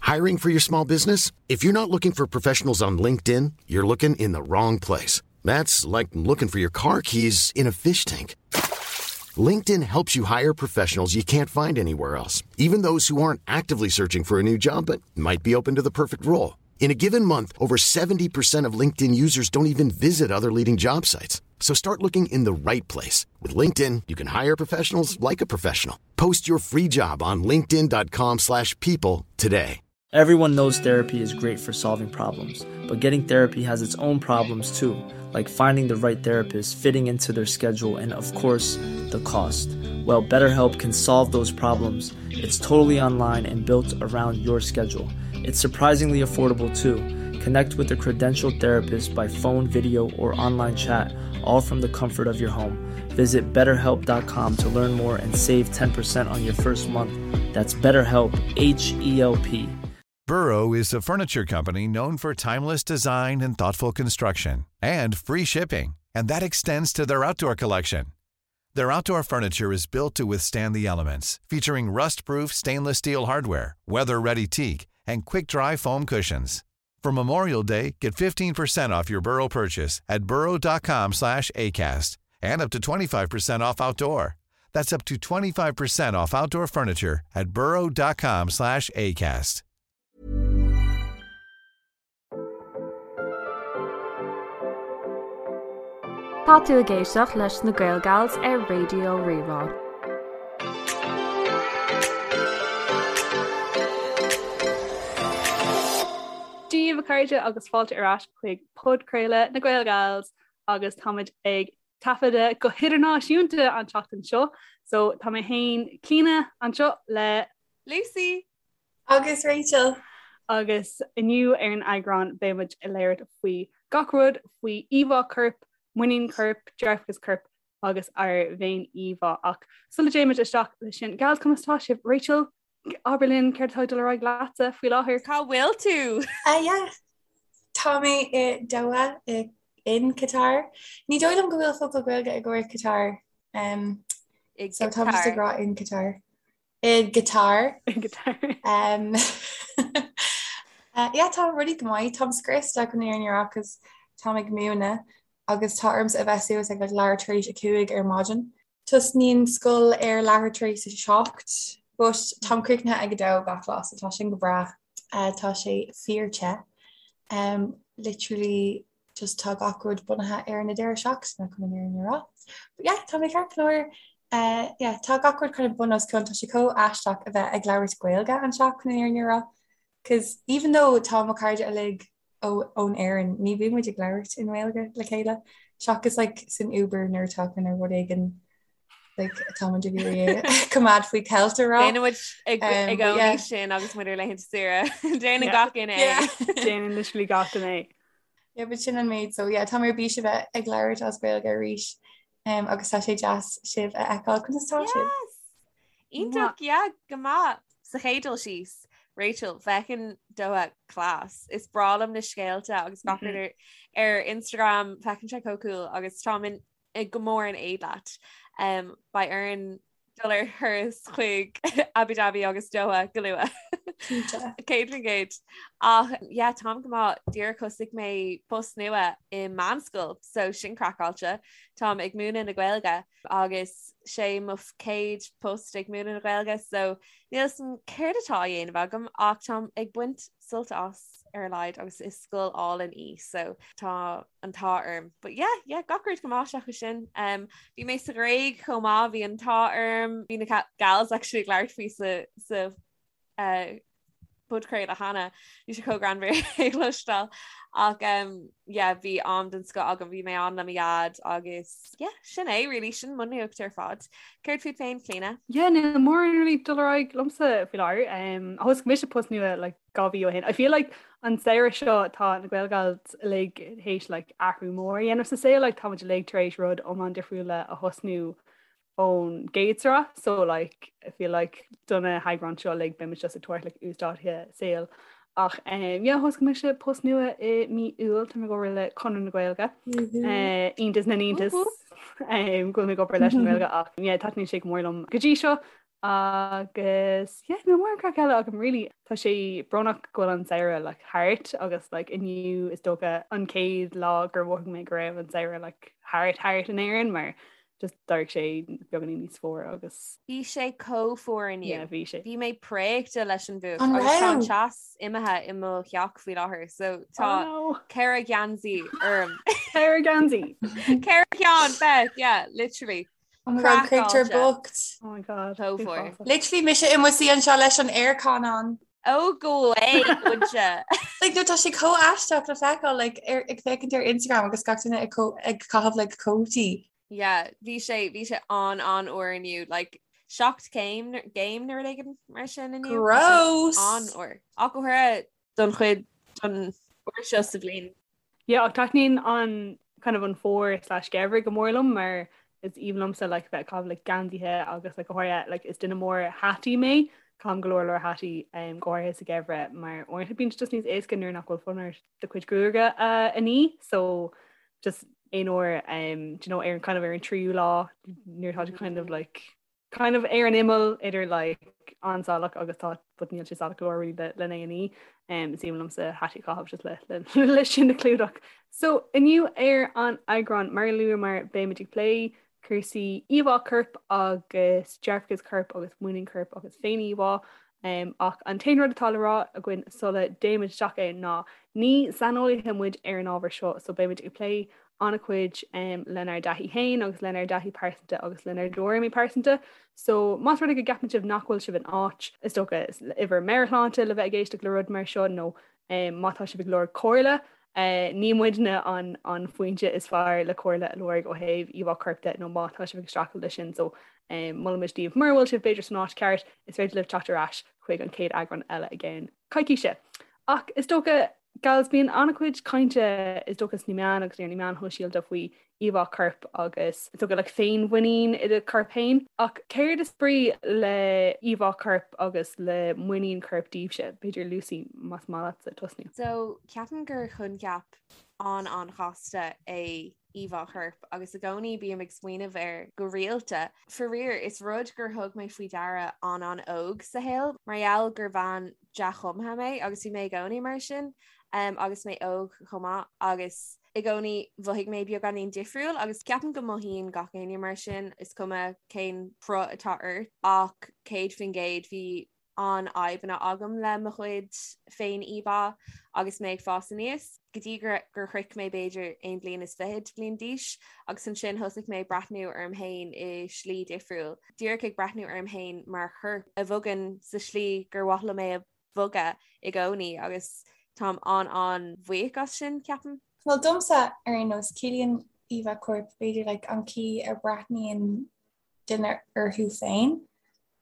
Hiring for your small business? If you're not looking for professionals on LinkedIn, you're looking in the wrong place. That's like looking for your car keys in a fish tank. LinkedIn helps you hire professionals you can't find anywhere else, even those who aren't actively searching for a new job but might be open to the perfect role. In a given month, over 70% of LinkedIn users don't even visit other leading job sites. So start looking in the right place. With LinkedIn, you can hire professionals like a professional. Post your free job on linkedin.com slash people today. Everyone knows therapy is great for solving problems, but getting therapy has its own problems too, like finding the right therapist, fitting into their schedule, and of course, the cost. Well, BetterHelp can solve those problems. It's totally online and built around your schedule. It's surprisingly affordable too. Connect with a credentialed therapist by phone, video, or online chat, all from the comfort of your home. Visit betterhelp.com to learn more and save 10% on your first month. That's BetterHelp, H E L P. Burrow is a furniture company known for timeless design and thoughtful construction and free shipping, and that extends to their outdoor collection. Their outdoor furniture is built to withstand the elements, featuring rust-proof stainless steel hardware, weather-ready teak, and quick-dry foam cushions. For Memorial Day, get 15% off your Burrow purchase at burrow.com slash ACAST and up to 25% off outdoor. That's up to 25% off outdoor furniture at burrow.com slash ACAST. Tá tú ag éisteacht leis na Gaelgals ar Raidió Rí-Rá. Dia daoibh a chairde agus fáilte ar ais chuig podchraoladh na Gaelgals agus táimid ag taifeadadh go hidirnáisiúnta an tseachtain seo so tá mé féin Clíona anseo le Lucy agus Rachel. Agus inniu ar an eagrán beimid ag labhairt faoi gach rud faoi íomhá coirp, muinín coirp, dearfachas coirp agus ár bhféin-íomhá. Ach sula dtéimid isteach leis sin, gals conas tá sibh? Rachel, abair linn céard atá ag dul ar aghaidh leatsa faoi láthair? Cá bhfuil tú? Ah yeah. Tá mé i Doha i in Qatar. Ní dóigh liom go bhfuil focal Gaeilge i gcomhair Qatar. Um, I so tá ag gCatar. rá in Qatar. I gCatar. I gCatar. Um, uh, yeah, tá rudaí go maith, Táim scriosta chun an fhírinne a rá cos táim ag múineadh agus tá ormsa a bheith suas ag like, leathuair tar éis 5 ar maidin. Tosnaíonn scoil ar leathuair tar éis 7, but táim críochnaithe ag 2 gach lá, so tá sin go breá. Uh, tá sé fíor te. Um, literally just tá gach rud bunaithe ar na deireadh seachtaine chun an fhírinne a rá. But yeah, tá mé ceart go leor. Uh, yeah, tá gach rud kind of bun os cionn, tá sé chomh aisteach a bheith ag labhairt Gaeilge anseo chun an fhírinne a rá. Cos even though tá mo chairde uilig ó ón Éirinn, ní bhíonn muid ag labhairt i nGaeilge le chéile, seachas like san Uber nuair atá kind of rud éigin like atá muid ag iarraidh coimeád faoi cheilt a rá. Déanann muid i Um, but gcónaí yeah. sin agus muid ar laethanta saoire. Déanann Yeah. gach duine é. Yeah. Déanann literally gach duine é. Yeah, but sin an méid so yeah, tá mé ar bís a bheith ag labhairt as Gaeilge arís um, agus tá sé deas sibh a fheiceáil conas tá sibh. Yes! Iontach, yeah, go maith. Sa chéad dul síos, Rachel, feiceann Doha class. Is breá liom na scéalta agus gach rud ar, ar Instagram, feiceann sé chomh cool agus táim in, i go mór in éad leat. Um, beidh orainn dul ar thuras chuig Abu Dhabi agus Doha go luath. Cinnte. 100%. Ach yeah, táim go maith díreach thosaigh mé post nua i meánscoil, so sin craiceáilte. Táim ag múineadh na Gaeilge agus sé mo chéad post ag múineadh na Gaeilge so níl a fhios agam céard atá á dhéanamh agam ach táim ag baint sult as ar a laghad agus is scoil álainn í so tá an t-ádh orm. But yeah, yeah, gach rud go maith seachas sin. Um, bhí mé sa Ghréig chomh maith, bhí an t-ádh orm, bhí na gals actually ag labhairt faoi sa, sa uh, podchraoladh cheana, bhí sé chomh greannmhar é a chloisteáil. Ach um, yeah, bhí am den scoth agam, bhí mé ann le mo dhaid agus yeah, sin é really, sin mo nuacht ar fad. Céard fút féin, Clíona? Yeah, níl mórán really ag dul ar aghaidh liomsa faoi láthair. Um, thosaigh mise post nua like, 2 mhí ó shin. I feel like an saoire seo tá na Gaelgals uilig théis like, athrú mór a dhéanamh sa saol, like, táimid uilig tar éis rud iomlán difriúla a thosnú ón gcéad sraith so like I feel like do na heagráin seo uilig beimid just ag tabhairt like uasdátuithe saoil ach um, yeah thosaigh mise post nua i mí Iúil tá mé ag obair le Conradh na Gaeilge uh, iontas na n-iontas um, go bhfuil mé ag obair leis an Ghaeilge ach yeah taitníonn sé go mór liom go dtí seo. Agus yeah, níl mórán craic eile agam really. Tá sé brónach go bhfuil an samhradh like thart agus like inniu is dócha an chéad lá gur mhothaigh mé go raibh an samhradh like thart thart in Éirinn mar just d'éirigh sé beagáinín níos fuaire agus. Bhí sé chomh fuar inniu. Yeah, bhí sé. Bhí mé préachta leis an bhfuacht An agus tá an raibh? teas imithe i mo theach faoi láthair so tá Oh no. 4 gheansaí orm. 4 gheansaí! 4 cheann, Beth, yeah, literally. Oh my god, créatúr Craiceáilte. bocht. Oh my god. Chomh fuar. Literally mise i mo suí anseo leis an aircon on. Oh go away, would ya? Like no tá sé chomh aisteach le feiceáil like ar ag féachaint ar Instagram agus gach duine ag co- ag caitheamh like cótaí. Yeah, bhí sé bhí sé an an-fhuar inniu like 7 céim gcéim nó rud éigin mar sin inniu. Gross. An-fhuar. Ach go háirithe don chuid don uair seo sa bhliain. Yeah, ach taitníonn an kind of an fómhar slash geimhreadh go mór liom mar is aoibhinn liomsa like bheith ag caitheamh like geansaithe agus like go háirithe like is duine mór hataí mé, caithim go leor leor hataí um, go háirithe sa gheimhreadh mar uaireanta bíonn sé just níos éasca nuair nach bhfuil fonn ort do chuid gruaige a a ní so just aon uair um, do you know, ar an kind of ar an tríú lá nuair atá sé kind of like kind of ar an imeall idir like an-salach agus tá but níl sé salach go leor really le lena ní um, is aoibhinn liomsa hataí a chaitheamh just le, le, le sin a chlúdach. So inniu ar an eagrán mar a luamar beimid ag plé cúrsaí íomhá coirp agus dearfachas coirp agus muinín coirp agus féin-íomhá. Um, ach an t-aon rud atá le rá againn sula dtéimid isteach ann ná ní saineolaithe muid ar an ábhar seo so beimid ag plé an-chuid lenár dtaithí féin agus lenár dtaithí pearsanta agus lenár dtuairimí pearsanta. So más rud é go gceapann sibh nach bhfuil sibh in áit, is dócha, i bhur meabhairshláinte le bheith ag éisteacht le rud mar seo nó má tá sibh ag lorg comhairle, ní muidne an an foinse is fearr le comhairle a lorg ó thaobh íomhá coirp de nó má tá sibh ag streachailt leis sin. So molaimid daoibh mura bhfuil sibh b'fhéidir san áit ceart, is féidir libh teacht ar ais chuig an chéad eagrán eile i gceann coicíse. Ach is dócha Gals, bíonn an-chuid cainte is dócha sna meáin agus ar na meáin shóisialta faoi íomhá coirp agus is dócha like féinmhuinín i do chorp féin. Ach céard is brí le íomhá coirp agus le muinín coirp daoibhse? B'fhéidir Lucy, más maith leatsa tosnú. So, ceapaim gur choincheap an-an-chasta é íomhá choirp agus i gcónaí bím ag smaoineamh air go rialta. Faraor, is rud gur thug mé faoi deara an-an-óg sa shaol mar gheall gur bhean dea-chumtha mé agus bhí mé i gcónaí mar sin agus mé óg chomh maith agus i gcónaí mhothaigh mé beagáinín difriúil agus ceapaim go mothaíonn gach éinne mar sin, is cuma cén cruth atá ort ach 100% bhí an-fhadhbanna agam le mo chuid féin-íomhá agus mé ag fás aníos, go dtí gur gur shroich mé b'fhéidir aon bhliain is fichead bliain d'aois agus ansin thosaigh mé ag breathnú orm féin i slí difriúil, díreach ag breathnú orm féin mar chorp a bhogann sa slí gur mhaith liom é a bhogadh i gcónaí agus táim an-an-bhuíoch as sin, ceapaim. Bhuel, domsa, ar aon nós, ciallaíonn íomhá coirp b'fhéidir like an chaoi a breathnaíonn duine orthu féin.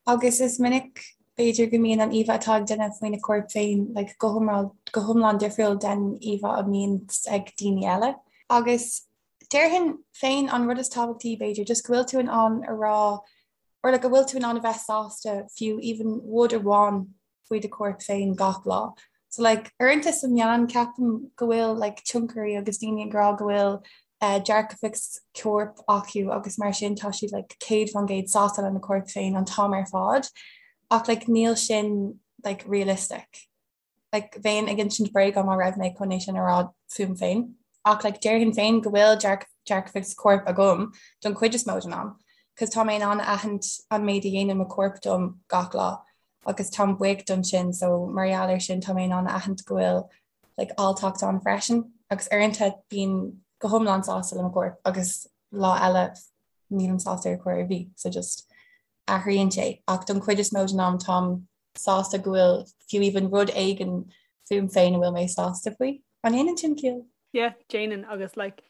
Agus is minic b'fhéidir go mbíonn an íomhá atá ag duine faoina corp féin like go hiomlán go hiomlán difriúil den íomhá a mbíonn ag daoine eile. Agus déarfainn féin an rud is tábhachtaí b'fhéidir just go bhfuil tú in ann a rá or like go bhfuil tú in ann a bheith sásta fiú even rud amháin faoi do chorp féin gach lá. So like uaireanta sna meáin ceapaim go bhfuil like tionchairí agus daoine ag rá go bhfuil uh, dearfachas coirp acu agus mar sin tá siad like 100% sásta lena corp féin an t-am ar fad ach like níl sin like realistic. Like bheinn ag insint bréaga má raibh mé chun é sin a rá fúm féin. Ach like déarfainn féin go bhfuil dearfachas coirp agam don chuid is mó den am, cos tá mé in ann a aithint an méid a dhéanann mo chorp dom gach lá. agus táim buíoch don sin so mar gheall air sin tá mé in ann a aithint go bhfuil like alltacht ann freisin agus uaireanta bím go hiomlán sásta le mo chorp agus lá eile nílim sásta ar chor ar bith so just athraíonn sé ach don chuid is mó den am táim sásta go bhfuil fiú even rud éigin fúm féin a bhfuil mé sásta faoi. An ndéanann sin ciall? Yeah, déanann agus like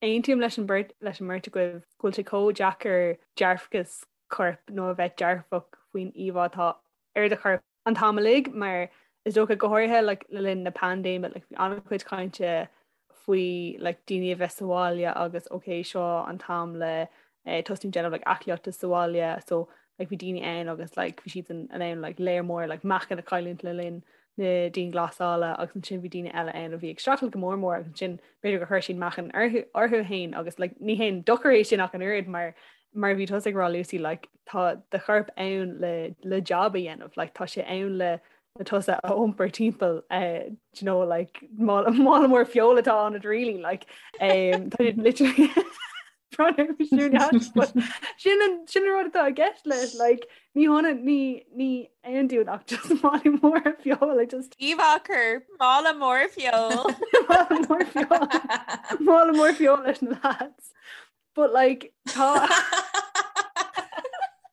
aontaím leis an beirt leis an mbeirt agaibh go bhfuil sé chomh deacair dearfachas coirp nó a bheith dearfach faoin íomhá atá ar do chorp an t-am uilig mar is dócha go háirithe like, le linn na paindéime like, bhí an-chuid cainte faoi like, daoine a bheith sa bhaile agus ok seo an t-am le eh, tosnú déanamh like, aclaíochta sa bhaile so like, bhí daoine ann agus like, bhí siad in ann like, léar mór like, meáchan a chailliúint le linn na dianghlasála agus ansin bhí daoine eile ann a bhí ag streachailt go mór mór agus ansin b'fhéidir gur chuir siad meáchan orthu orthu féin agus like, ní haon dochar é sin ach an oiread mar mar a bhí tusa ag rá Lucy like tá do chorp ann le le job a dhéanamh like tá sé ann le le tusa a iompar timpeall uh, do you know like mála mála mór feola atá ann really like um, tá sé literally sin an sin an rud atá i gceist leis like ní hionann ní ní aon dúinn ach just mála mór feola like just Íomhá coirp mála mór feoil. Mála mór feoil. Mála mór feoil leis na lads. But like tá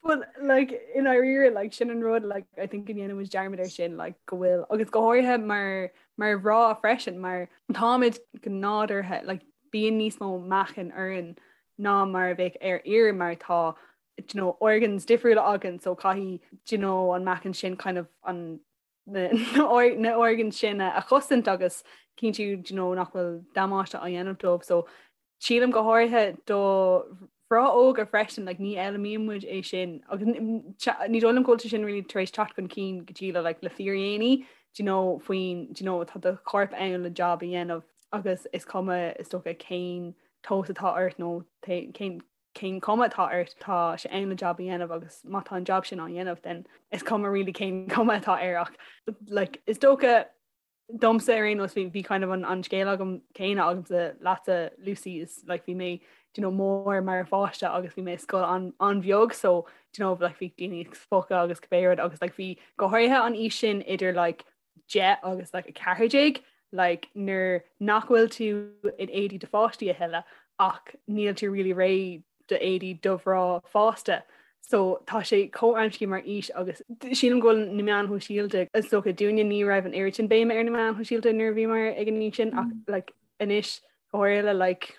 But like i ndáiríre like sin an rud like I think go ndéanann muid dearmad air sin like go bhfuil agus go háirithe mar mar mhná freisin mar táimid go nádúrtha like bíonn níos mó meáchain orainn ná mar a bheadh ar fhir mar tá do you know, organs difriúla againn so caithfidh do you know, an meáchan sin kind of an na, na, na organs sin a, a chosaint agus cinntiú do you know, nach bhfuil damáiste á dhéanamh dóibh so sílim go háirithe do mhná óga freisin like, ní fhoghlaimíonn muid é sin agus ní dóigh liom go bhfuil sé sin really tar éis teacht chun cinn go dtí le like, le fíordhéanaí do you know, faoin do you know, tá do chorp ann le job a dhéanamh agus is cuma is dócha cén tomhas atá ort nó cén cén cuma atá ort tá sé ann le job a dhéanamh agus má tá an job sin á dhéanamh then is cuma really cén cuma atá air ach like, is dócha domsa ar aon nós bhí bhí kind of an, an scéal agam céanna agamsa leatsa Lucy is like bhí mé do you know, mór mar pháiste agus bhí mé scoil an an-bheag so do you know, like bhí daoine ag spochadh agus cibé rud agus like bhí go háirithe an aois sin idir like 10 agus like 14 like nuair nach bhfuil tú in éadaí do pháistí a thuilleadh ach níl tú really réidh do éadaí do mhná fásta. So tá sé chomh amscaí mar aois agus sílim go bhfuil na meáin shóisialta is dócha dúinne ní raibh an oiread sin béime ar na meáin shóisialta nuair a bhíomar ag an aois sin ach like anois go háirithe like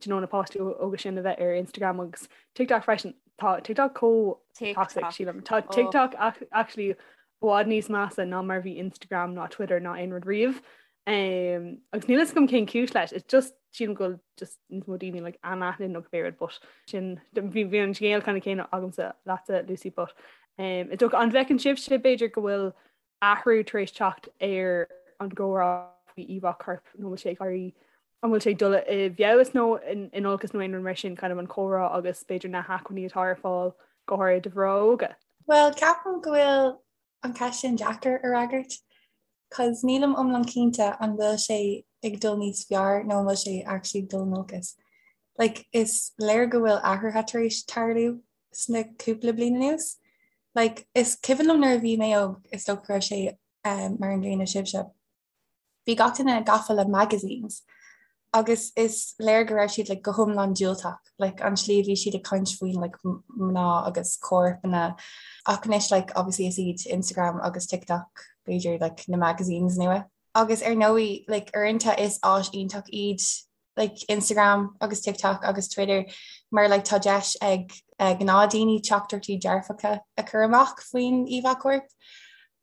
do you know na páistí óga sin a bheith ar Instagram agus TikTok freisin. Tá TikTok chomh toxic sílim. Tá oh. TikTok actually i bhfad níos measa ná mar bhí Instagram ná Twitter ná aon rud riamh. Um, agus níl a fhios agam cén cúis leis, it's just sílim go bhfuil just níos mó daoine like anaithnid nó cibé rud but sin bhí bhí an scéal kind of céanna agamsa leatsa Lucy but um, is dócha an bhfeiceann sibhse b'fhéidir go bhfuil athrú tar éis teacht ar an gcomhrá faoi íomhá coirp nó bhfuil sé ag éirí an bhfuil sé ag dul i bhfeabhas nó in olcas nó aon rud mar sin kind of an comhrá agus b'fhéidir na hacmhainní atá ar fáil go háirithe do mhná óga. Bhuel, ceapaim go bhfuil an cheist sin deacair a fhreagairt, cos nílim iomlán cinnte an bhfuil sé ag dul níos fearr nó an bhfuil sé actually ag dul in olcas. Like, is léir go bhfuil athruithe tar éis tarlú sna cúpla bliain anuas. Like, is cuimhin liom nuair a bhí mé óg, is dócha go raibh sé um, mar an gcéanna sibhse. Bhí gach duine gafa le magazines agus is léir go raibh siad like, go hiomlán diúltach, like, an tslí a bhí siad ag caint faoin like, mná agus corpanna. Ach anois like, obviously is iad Instagram agus TikTok b'fhéidir like, na magazines nua. Agus ar ndóigh like, uaireanta is áis iontach iad like Instagram agus TikTok agus Twitter mar like tá deis ag uh, gnáthdhaoine teachtaireachtaí dearfacha a chur amach faoin íomhá coirp.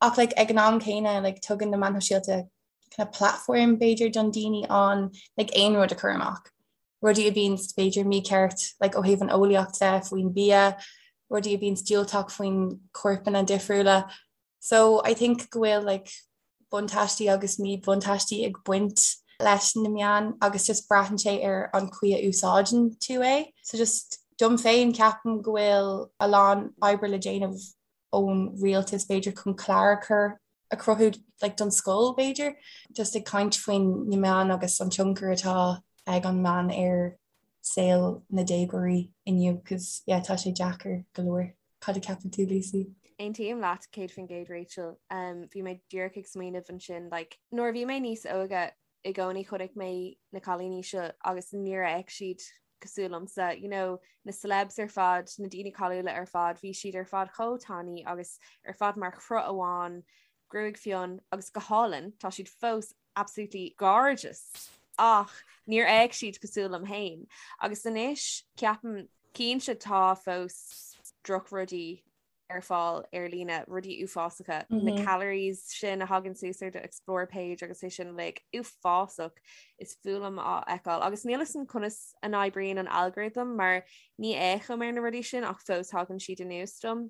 Ach like ag an am céanna like tugann na meáin shóisialta kind of platform b'fhéidir don daoine an like aon rud a chur amach. Rudaí a bhíonn b'fhéidir mícheart like ó thaobh an eolaíocht de faoin bia, rudaí a bhíonn diúltach faoin corpanna difriúla. So I think go bhfuil like buntáistí agus míbhuntáistí ag baint leis na meáin agus just braitheann sé ar an chaoi a úsáideann tú é. So just dom féin ceapaim go bhfuil a lán oibre le déanamh ón rialtas b'fhéidir chun clár a chur a chruthú like don scoil b'fhéidir, just ag caint faoin na meáin agus an tionchar atá ag an meán ar saol na déagóirí inniu cos yeah tá sé deacair go leor. Cad a ceapann tú Lucy? Aontaím leat 100% Rachel. Um, bhí mé díreach ag smaoineamh ansin like, nuair a bhí mé níos óige i gcónaí chonaic mé na cailíní seo agus níor fhéach siad cosúil liomsa, you know, na celebs ar fad, na daoine cáiliúla ar fad, bhí siad ar fad chomh tanaí agus ar fad mar chruth amháin, gruaig fionn agus go hálainn, tá siad fós absolutely gorgeous ach níor fhéach siad cosúil liom féin. Agus anois ceapaim cinnte tá fós drochrudaí ar fáil ar líne, rudaí uafásacha, mm -hmm. na mhm. calories sin a thagann suas ar do explore page agus é sin like uafásach is fuath liom á fheiceáil. Agus níl a fhios agam conas a n-oibríonn an algorithm mar ní fhéachaim ar na rudaí sin ach fós thagann siad anuas dom.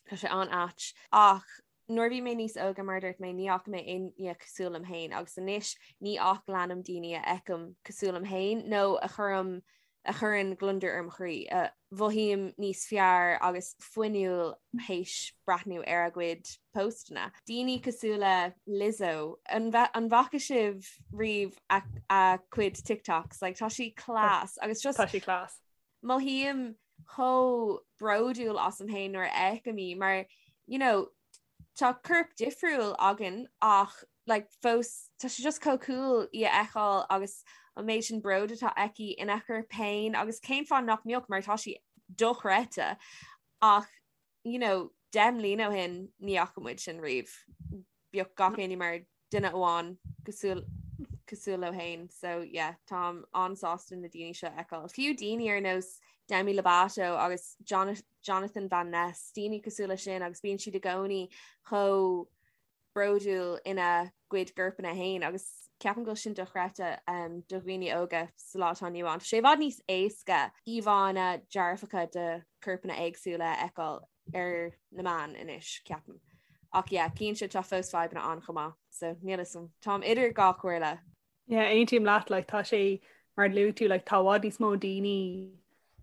Tá sé an-ait ach Nuair a bhí mé níos óige, mar a dúirt mé, ní fhaca mé éinne cosúil liom féin agus anois ní ach leanaim daoine a fheicim cosúil liom féin nó a chuirim. a chuireann gliondar ar mo chroí, a mhothaím níos fearr agus fuinniúil théis breathnú ar a gcuid postanna. Daoine cosúil le Lizzo, an bhfaca sibh riamh a cuid TikToks? Like, tá sí class agus just Tá sí class. Mothaím chomh bródúil asam féin nuair a fheicim í mar you know, tá corp difriúil againn ach like fós tá sé just chomh cool í a fheiceáil agus an méid sin bród atá aici ina corp féin agus cén fáth nach mbeadh mar tá sí dochreidte ach you know 10 mbliana ó shin ní fhaca muid sin riamh. Bheadh gach éinne mar duine amháin cosúil cosúil leo féin so yeah táim an-sásta na daoine seo a fheiceáil. Fiú daoine ar nós Demi Lovato agus Jonathan Van Ness, daoine cosúil le sin agus bíonn siad i gcónaí chomh bródúil ina gcuid gcorpanna féin agus ceapaim go bhfuil sin dochreidte um, do dhaoine óga sa lá atá inniu ann. Tá sé i bhfad níos éasca íomhánna dearfacha de chorpanna éagsúla a fheiceáil ar na meáin anois, ceapaim. Ach yeah, cinnte tá fós fadhbanna ann chomh maith, so níl 'fhios a'm. Táim idir dhá chomhairle. Yeah, aontaím leat, like, tá sé mar a luaigh tú, like, tá i bhfad níos mó daoine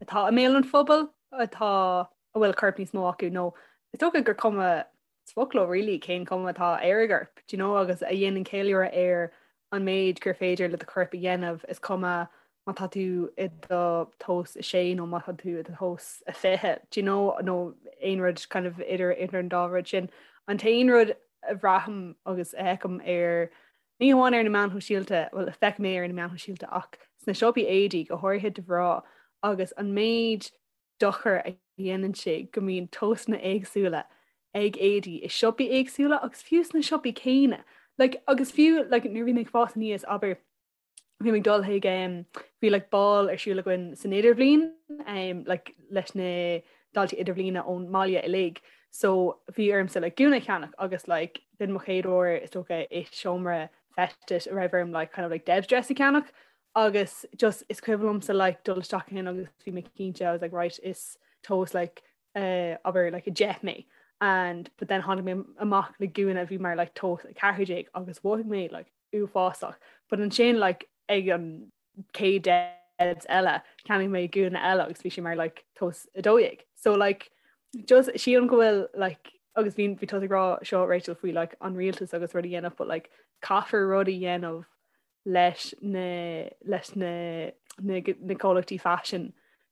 atá i mbéal an phobail atá a bhfuil corp níos mó acu nó is dócha gur cuma is fuath leo really cén cuma atá ar a gcorp, do you know, agus a dhéanann ceiliúradh ar an méid gur féidir le do chorp a dhéanamh, is cuma má tá tú i do thomhas 6 nó má tá tú i do thomhas 20, do you know, nó aon rud kind of idir idir an dá rud sin. An t-aon rud a bhraithim agus a fheicim ar ní hamháin ar na meáin shóisialta, bhuel, a feicim é ar na meáin shóisialta ach sna siopaí éadaí, go háirithe do mhná, agus an méid dochar a dhéanann sé go mbíonn tomhasanna éagsúla ag éadaí i siopaí éagsúla agus fiú sna siopaí céanna. Like, agus fiú like, nuair a bhí mé ag fás aníos, abair, bhí mé ag dul chuig um, bhí like, bál ar siúl againn san idirbhliain um, like, leis na daltaí idirbhliana ón mbaile uilig. So bhí ormsa like, gúna a cheannach agus like, b'in mo chéad uair is dócha i seomra feistis a raibh orm like, kind of like Debs dress a cheannach agus just is cuimhin liomsa like dul isteach ann agus bhí mé cinnte I was like right is tomhas like uh, abair like 10 mé and but then tháinig mé amach le gúna a bhí mar like tomhas 14 agus mhothaigh mé like uafásach but ansin like ag an chéad Debs eile cheannaigh mé gúna eile agus bhí sé mar like tomhas 12 so like just sílim go bhfuil like agus bhí bhí tú ag rá seo Rachel faoi like an rialtas agus rud a dhéanamh but like caithfear rud a dhéanamh leis na leis na na na comhlachtaí faisin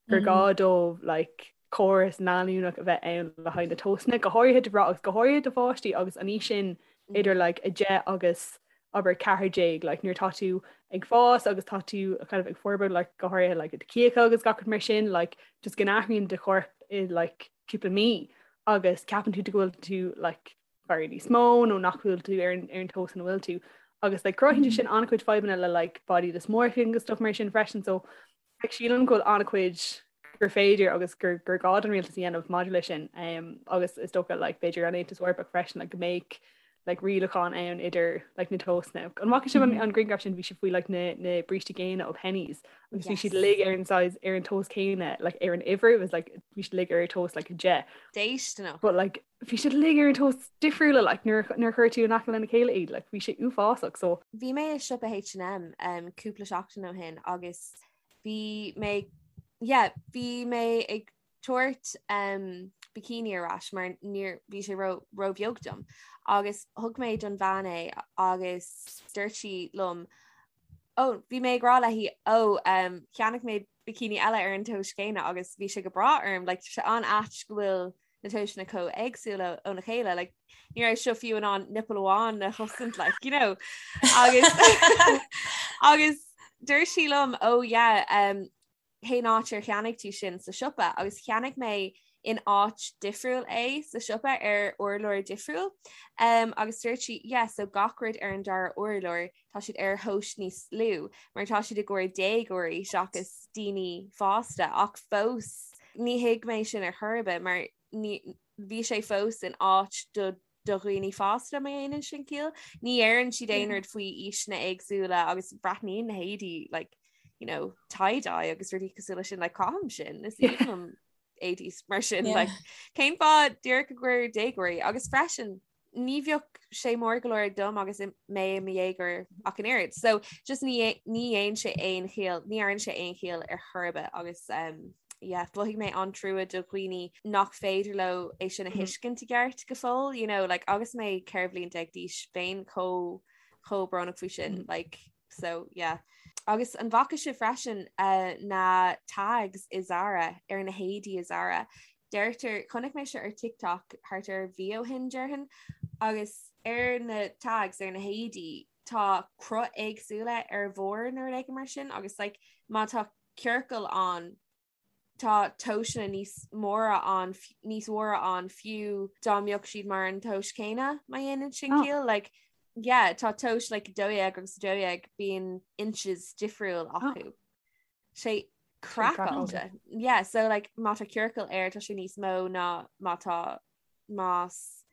gur gá dóibh like córas leanúnach a bheith ann le haghaidh na tomhasanna, go háirithe do mhná agus go háirithe do pháistí agus an aois sin idir like 10 agus abair 14 like nuair tá tú ag fás agus tá tú kind of ag forbairt like go háirithe like do chíocha agus gach rud mar sin like just go n-athraíonn do chorp i like cúpla mí agus ceapann tú go bhfuil tú like ag éirí níos mó nó nach bhfuil tú ar an ar an tomhas ina bhfuil tú. Agus like cruthaíonn sé sin an-chuid fadhbanna le like body dysmorphia agus stuff mar sin freisin so like sílim go bhfuil an-chuid gur féidir agus gur gur gá don rialtas a dhéanamh maidir leis sin um, agus is dócha like b'fhéidir an Aontas Eorpach freisin like go mbeadh like rialachán ann idir like na tomhasanna. An bhfaca sibh an, an grianghraf sin bhí sé faoi like na, na brístí géine ó Penneys agus bhí siad uilig ar an size ar an tomhas céanna like ar an uimhir it was like bhí siad uilig ar tomhas like 10. Déisteanach. But like bhí siad uilig ar an tomhas difriúla like nuair nuair a chuir tú in aice lena chéile iad like bhí sé uafásach so Bhí mé i siopa H&M um, cúpla seachtain ó shin agus bhí mé yeah, bhí mé ag tabhairt um, bikini ar ais mar níor bhí sé ró róbheag dom agus thug mé don bhean é agus dúirt sí liom ó bhí mé ag rá léi ó um, cheannaigh mé bikini eile ar an tomhas céanna agus bhí sé go breá orm like, sé an-ait go bhfuil na tomhaiseanna chomh éagsúil óna chéile like ní raibh seo fiú in ann nipple amháin a chosaint like you know agus agus dúirt sí liom oh yeah um cén áit ar cheannaigh tú sin sa siopa agus cheannaigh mé in áit difriúil é sa siopa ar urlár difriúil um, agus dúirt sí yeah so gach rud ar an dara urlár tá siad ar thomhas níos lú mar tá siad i gcomhair déagóirí seachas daoine fásta ach fós ní thuig mé sin ar chor ar bith mar ní bhí sé fós in áit do do dhaoine fásta má dhéanann sin ciall. Ní deireann siad aon rud faoi aoiseanna éagsúla agus breathnaíonn na héadaí like you know tie dye agus rudaí cosúil leis sin like caithim sin is aoibhinn liom éadaí mar sin like cén fáth díreach i gcomhair déagóirí agus freisin. Ní bheadh sé mór go leor dom agus mé i mo dhéagóir ach an oiread. So just ní ní dhéanann sé aon chiall, ní airíonn sé aon chiall ar chor ar bith agus um, yeah, mhothaigh mé an-trua do dhaoine nach féidir leo é sin a mhm. thuiscint i gceart go fóill, you know, like, agus mé 14 bhliain d'aois bheinn chomh chomh brónach faoi sin, mm -hmm. like, so yeah. Agus an bhfaca sibh freisin uh, na tags i Zara ar na héadaí i Zara. Deirtear, chonaic mé seo ar TikTok thart ar mhí ó shin déarfainn, agus ar na tags ar na héadaí tá cruth éagsúla ar bharr nó rud éigin mar sin agus like, má tá ciorcal ann tá tomhaiseanna níos móra ann níos mhóra ann fiú dá mbeadh siad mar an tomhas céanna má dhéanann sin oh. ciall like yeah tá tomhas like 12 agus 12 bíonn inches difriúil oh. acu. Sé craiceáilte. Yeah, so like má tá ciorcal air tá sé níos mó ná má tá más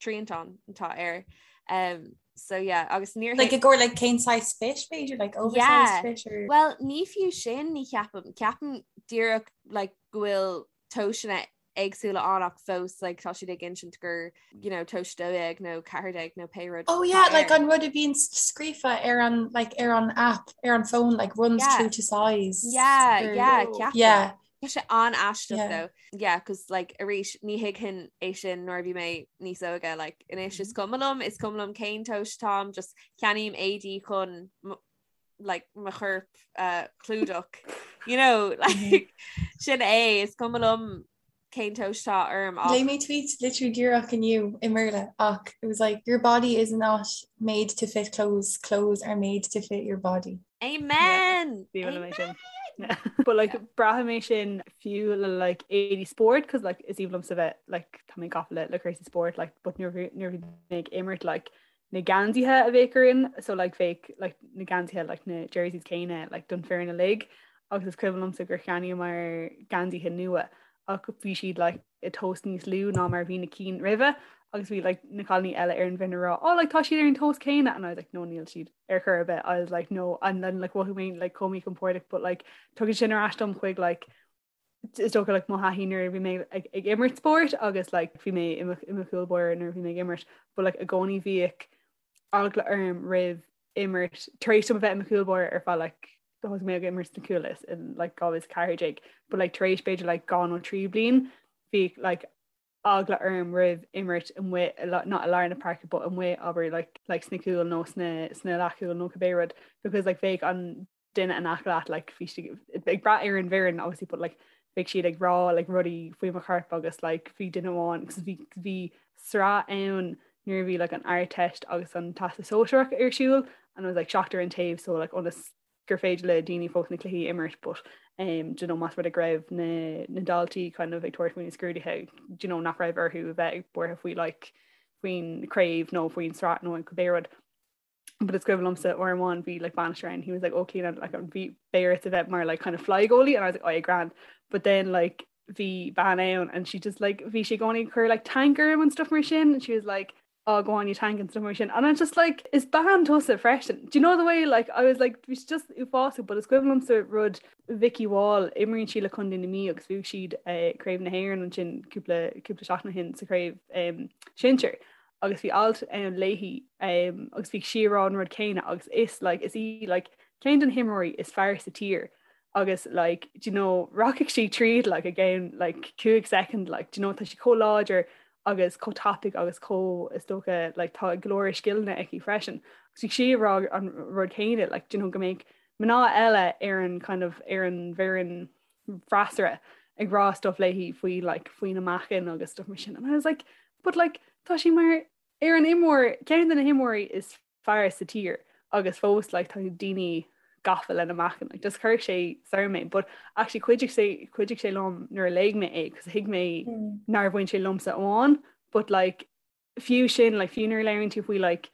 triantán atá air. Um, so yeah, agus níor Like i gcomhair like cén size fit b'fhéidir like oversized yeah. fit or Well, ní fiú sin ní cheapaim. Ceapaim díreach like go bhfuil tomhaiseanna éagsúla ann ach fós like tá siad ag insint gur you know tomhas 12 nó 14 nó pé rud Oh yeah, like an rud a bhíonn scríofa ar an like ar an app ar an phone like runs yeah. true to size. Yeah, or, yeah, ceapaim. Yeah. Tá sé an-aisteach yeah. though. Yeah, cos like arís ní thuigfinn é sin nuair a bhí mé níos óige like anois is cuma liom is cuma liom cén tomhas táim just ceannaím éadaí chun like mo chorp uh, clúdach you know like mm-hmm. sin é is cuma liom cén tomhas tá orm ach Léigh mé tweet literally díreach inniu i mBéarla ach it was like your body is not made to fit clothes, clothes are made to fit your body. Amen! Amen! Sin. But like braithim é sin fiú le like éadaí spóirt cos like is aoibhinn liomsa bheith like tá mé gafa le le cúrsaí spóirt like but nuair nuair bhí mé ag imirt like na geansaithe a bheadh orainn so like bheadh like na geansaithe like na jerseys céanna like don foireann uilig agus is cuimhin liomsa gur cheannaíomar geansaithe nua ach bhí siad like i tomhas níos lú ná mar bhí na cinn roimhe agus bhí like na cailíní eile ar an bhfoireann ag rá oh like tá siad ar an tomhas céanna and I was like no níl siad ar chor ar bith I was like no and then like mhothaigh mé like chomh míchompordach but like tugann sin ar ais dom chuig like is dócha like mo thaithí nuair a bhí mé ag, ag imirt spóirt agus like bhí mé i mo, i mo chúl báire nuair a bhí mé ag imirt but like i gcónaí bhíodh eagla orm roimh imirt tar éis dom a bheith i mo chúl báire ar feadh like thosaigh mé ag imirt sna cúil in like 2014 but like tar éis b'fhéidir like 2 nó 3 bliain bhí like eagla orm roimh imirt amuigh not i lár na páirce but amuigh abair like like sna cúil nó sna sna leathchúil nó cibé rud because like bheadh an duine in aice leat like bhí siad ag brath ar an bhfoireann obviously but like bheadh siad ag rá like rudaí faoi mo chorp agus like bhí duine amháin agus bhí bhí sraith ann nuair a bhí like an Ardteist agus an Teastas Sóisearach ar siúl and it was like seachtar an taobh so like ionas gur féidir le daoine fós na cluichí a imirt but um, do you know, más rud é go raibh na, na daltaí kind of ag tabhairt faoi na scrúduithe do you know, nach raibh orthu a bheith buartha faoi like faoin craobh nó faoin sraith nó an cibé rud. but is cuimhin liomsa uair amháin bhí like bainisteoir ann he was like oh Clíona like an bhí beidh ort a bheith mar like kind of fly goalie and I was like oh yeah grand but then like bhí bean ann and she just like bhí sí i gcónaí ag cur like tank orm and stuff mar sin and she was like oh go on you tank and stuff mar sin and I'm just like is bean tusa freisin do you know the way like I was like bhí sí just uafásach but is cuimhin liomsa rud Vicky Wall imríonn sí le Contae na Mí agus bhuaigh siad eh, Craobh na hÉireann ansin cúpla cúpla seachtain ó shin sa chraobh um, sinsir agus bhí alt ann léi agus bhí sí ag rá an rud céanna agus is like is í like ceann de na himreoirí is fearr sa tír agus like do you know rachaidh sí tríd like i gceann like 5 second like do you know tá sí chomh láidir agus chomh tapaidh agus chomh is dócha like tá go leor scileanna aici freisin agus bhí sí ag rá an rud céanna like do you know go mbeadh mná eile ar an kind of ar an bhfoireann freasúra ag rá stuff léi faoi like faoina meáchan agus stuff mar sin and I was like but like tá sí mar ar an imreoir ceann de na himreoirí is fearr sa tír agus fós like tá daoine gafa lena meáchan like just chuir sé soir mé but actually chuidigh sé chuidigh sé liom nuair a léigh mé é cos thuig mé mm. nár bhain sé liomsa amháin but like fiú sin like fiú nuair a labhraíonn tú faoi like